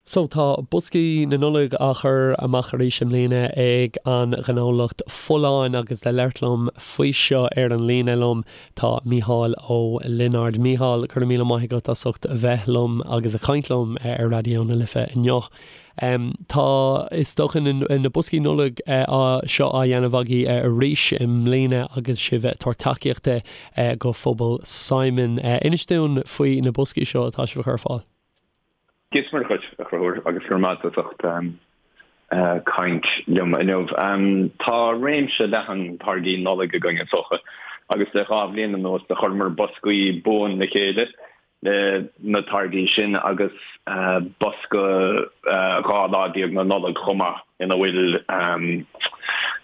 So tá boscaí na Nollag á chur amach arís i mbliana ag an ghnólacht Folláin agus le labhairt liom faoi seo ar an líne liom tá Mícheál Ó Lionáird. Mícheál, go raibh míle maith agat as ucht a bheith liom agus a chaint liom ar Raidió na Life inniu. Tá, is dócha, na boscaí Nollag seo á dhéanamh agaibh arís i mbliana agus sibh ag tabhairt tacaíochta go phobal Simon. Inis dúinn faoi na boscaí seo atá sibh a chur ar fáil. Dia is Muire dhuit, a Chonchúir, agus go raibh maith agat as ucht caint liom inniu. Tá réimse leathan táirgí Nollag againn, is dócha, agus le 2 bhliain anuas do chuireamar boscaí buan le chéile le na táirgí sin agus bosca 12 lá na Nollag chomh maith ina bhfuil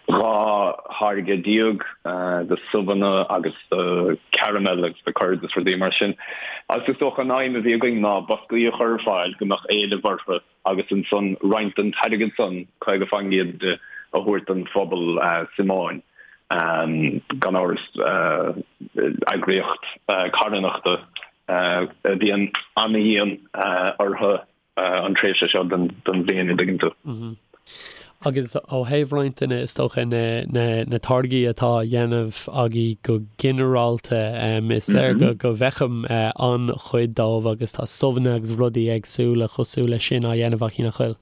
12 tháirge de subhanna agus de caramel agus de curds is rudaí mar sin. Agus is dócha an aidhm a bhí againn ná boscaí a chur ar fáil go mbeadh éileamh orthu agus ansan roinnt den t-airgead san, 50% de, a thabhairt don phobal Síomóin. Gan amhras eagraíocht carthanachta a bhíonn ana-dhian orthu an tréimhse seo den bhliain, an dtuigeann tú. Agus ó thaobh roinnt de na, is dócha, na táirgí atá á dhéanamh agaibh go ginearálta, is léir go go bhfeicim an-chuid dóibh agus tá subhanna agus rudaí éagsúla cosúil leis sin á dhéanamh agaibh, nach bhfuil?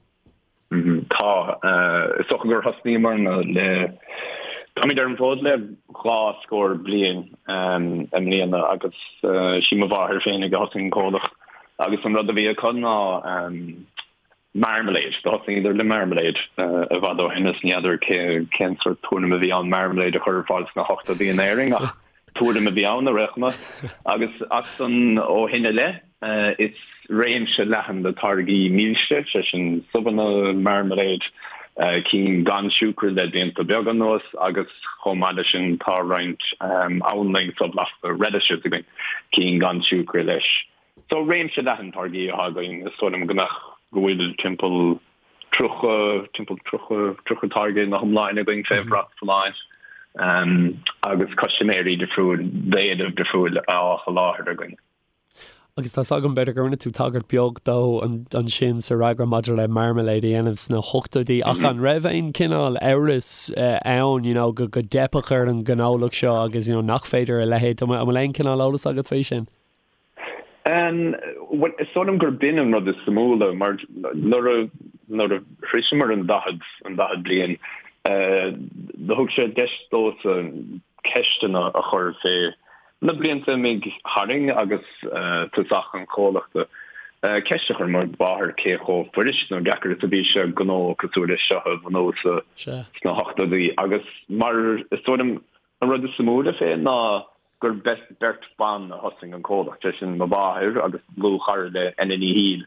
Tá. Is dócha gur thosnaíomarna le, táimid ar an bhfód le 2 scór bliain i mbliana agus sí mo mháthair féinig a thosaigh an comhlacht agus an rud a bhí acu ná marmalade. Do thosnaíodar le marmalade i bhfad ó shin is ní fheadar cén sórt tuairim a bhí ann marmalade a chur ar fáil sna hochtóidí in Éirinn ach tuairim a bhí ann ar aon chuma. Agus as san ó shin i leith is réimse leathan de táirgí milse, sé sin subhanna, marmalade, cinn gan siúcra le blianta beaga anuas agus chomh maith leis sin tá roinnt anlainn so-bhlasta, relishes, againn, cinn gan siúcra leis. So réimse leathan táirgí atá againn, is dóigh liom go mbeadh, go bhfuil timpeall 30, timpeall 30, 30 táirge ina hiomláine againn fé bhrat Folláin agus custaiméirí difriúil, d'éileamh difriúil á sholáthar againn. Agus tá's agam, b'fhéidir go rinne tú tagairt beag dó ansin sa fhreagra maidir le marmalade a dhéanamh sna hochtóidí, ach an raibh aon chineál amhras ann, you know, go dteipfeadh ar an ngnólacht seo agus, you know, nach féidir a leithéid, an bhfuil aon chineál eolas agat faoi sin? Bhuel, is dóigh liom gur b'in an rud is suimiúla, mar nuair a, nuair a shroiseamar an 40, an 40 bliain, do thug sé deis domhsa ceisteanna a chur fé na blianta a imigh tharainn agus tosach an chomhlachta. Ceist a chuir mo mháthair cé chomh fuirist nó deacair is a bhí sé gnó cosúil leis seo a bhunú sa, sna hochtóidí agus mar is dóigh liom an rud is suimiúla fé ná gur beirt bhan a thosaigh an comhlacht, sé sin mo mháthair agus dlúthchara léi, Ena Ní Shiail,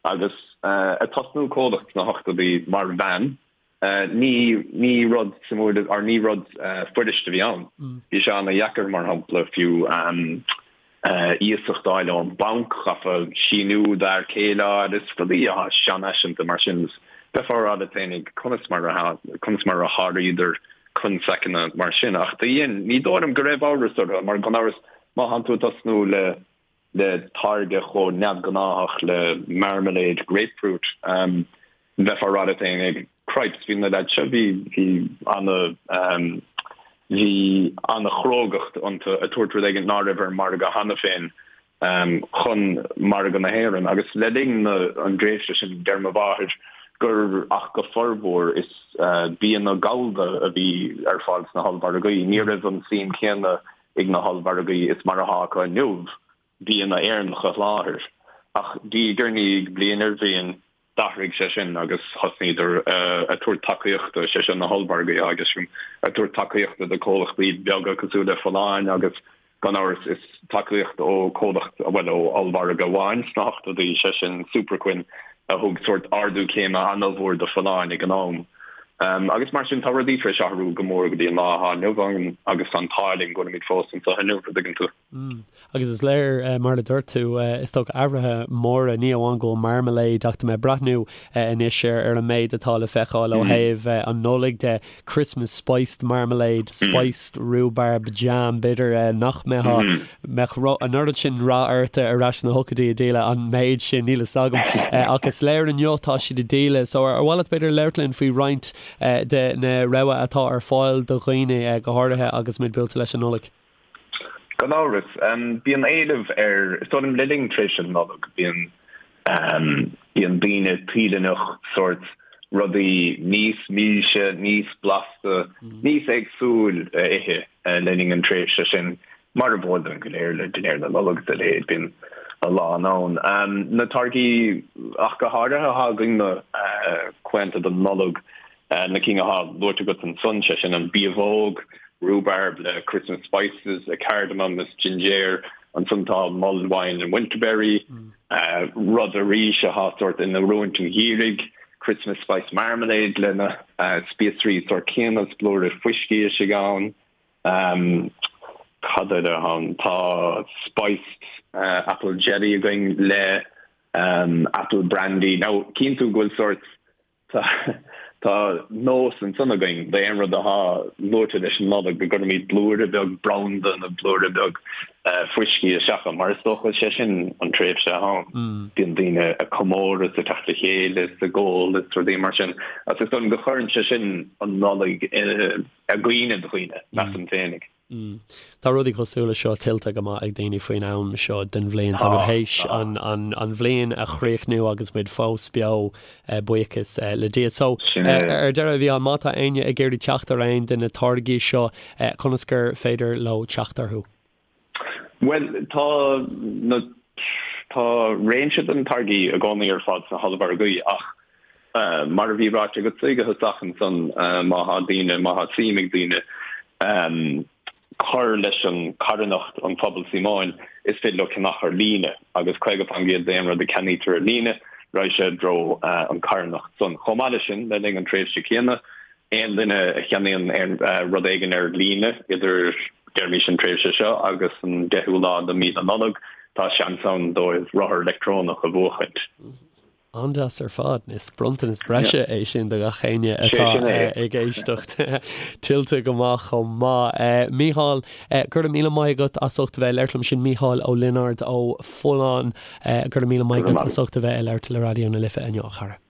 agus ag tosnú comhlacht sna hochtóidí mar bhean, ní ní rud suimiúil or ní rud fuirist a bhí ann. Bhí sé ana-dheacair, mar shampla, fiú iasacht a fháil ón banc, chaithfeá síniú d'fhear céile a fháil is rudaí atá seanfhaiseanta mar sin. Bheifeá ag rá leat féinig conas mar a conas mar a sháraíodar constaiceanna mar sin. Ach do dhein, ní dóigh liom go raibh amhras orthu, mar gan amhras, má thánn tú ag tosnú le le táirge chomh neamhghnáthach le marmalade grapefruit, bheifeá ag rá leat féinig, cripes, bhí na leaids seo, bhí, bhí ana, bhí ana-chrógacht iontu ag tabhairt rud éigin ná raibh ar an margadh cheana féin chun margadh na hÉireann agus le linn an dtréimhse sin deir mo mháthair gur ach go formhór is bianna gallda a bhí ar fáil sna hollmhargaí. Ní raibh an suim céanna ag na hollmhargaí is mar atá acu inniu bianna Éireannacha a sholáthar. Ach diaidh ar ndiaidh, bliain ar bhliain, D'athraigh sé sin agus thosnaíodar ag tabhairt tacaíochta, sé sin na hollmhargaí agus ag tabhairt tacaíochta do comhlachtaí beaga cosúil le Folláin agus gan amhras is tacaíocht ó comhlacht, bhuel ó ollmhargadh amháin sna hochtóidí, sé sin Superquinn a thug sórt ardú céime an-mhór do Folláin ag an am. Agus mar sin tá rudaí tar éis athrú go mór go dtí an lá atá inniu ann agus tá an t-ádh linn go bhfuilimid fós anseo inniu, an dtuigeann tú. Agus is léir, mar a dúirt tú, is dócha athruithe móra, ní amháin go bhfuil marmalade ach tá mé ag breathnú anois ar an méid atá le feiceáil ó thaobh an Nollaig de, Christmas spiced marmalade, spiced rhubarb jam, b'fhéidir nach mbeadh mbeadh an oiread sin rath ort ar ais sna hochtóidí ag díol an méid sin, níl fhios agam. Ach is léir inniu tá siad ag díol. So ar mhaith leat b'fhéidir labhairt linn faoi roinnt de na rogha atá ar fáil do dhaoine, go háirithe agus muid buailte leis an Nollaig? Gan amhras. Bíonn éileamh ar, is dóigh liom le linn tréimhse na Nollag, bíonn, bíonn daoine toilteanach sórt rudaí níos milse, níos blasta, níos éagsúil a ithe le linn an tréimhse sin, mar ab eol dúinn go léir le dinnéar na Nollag is a leithéid, bíonn a lán ann. Na táirgí ach go háirithe atá againn na claonta don Nollaig, Na cinn atá luaite agat ansan, sé sin an biabhóg, rhubarb le Christmas spices, cardamom is jinjéir, ansan tá mulled wine and winterberry, rud arís atá sórt in oiriúint an gheimhridh, Christmas spice marmalade le na spíosraí sórt céanna is blúire fuiscí istigh ann. Cad eile atá ann? Tá spiced apple jelly againn le apple brandy. Now cíonn tú go bhfuil sórt Tá nós ansan againn d'aon rud atá luaite leis an Nollaig go gcuirimid blúire beag branda nó blúire beag fuiscí isteach ann, mar is dócha sé sin an tréimhse atá ann. Bíonn daoine ag comóradh is ag teacht le chéile is ag ól is rudaí mar sin agus is dóigh liom go gcuireann sé sin an Nollaig i gcuimhne do dhaoine, measaim féinig. Tá rudaí cosúil le seo tuillte go maith ag daoine faoin am seo den bhliain. Tá muid théis an bhliain a chríochnú agus muid fós beo, buíochas le Dia. So, ar deireadh, a Mhícheáil, má tá éinne ag iarraidh teacht ar aon de na táirgí seo, conas gur féidir leo teacht orthu? Bhuel, tá na, tá réimse de na táirgí i gcónaí ar fáil sna hollmhargaí ach mar a bhí ráite agatsa ag an tosach ansan, má thá daoine, má thá suim ag daoine cur leis an carthanacht an Phuball Síomóin, is féidir leo ceannach ar líne agus 50% d'aon rud a ceannaítear ar líne, raghaidh sé i dtreo an carthanacht san. Chomh maith leis sin, le linn an tréimhse céanna, Aon duine a cheannaíonn aon rud éigin ar líne idir, deirimis, an tréimhse seo agus an deichiú lá de mhí na Nollag, tá seans ann dóibh rothar leictreonach a bhuachaint. An-deas ar fad. Is bronntanas breise é sin do gach éinne atá ag éisteacht. Tuillte go maith chomh maith. Mícheál, go raibh míle maith agat as ucht a bheith ag labhairt liom. Sin Mícheál Ó Lionáird ó Folláin. Go raibh míle maith agat as ucht a bheith ag labhairt le Raidió na Life inniu, a chara.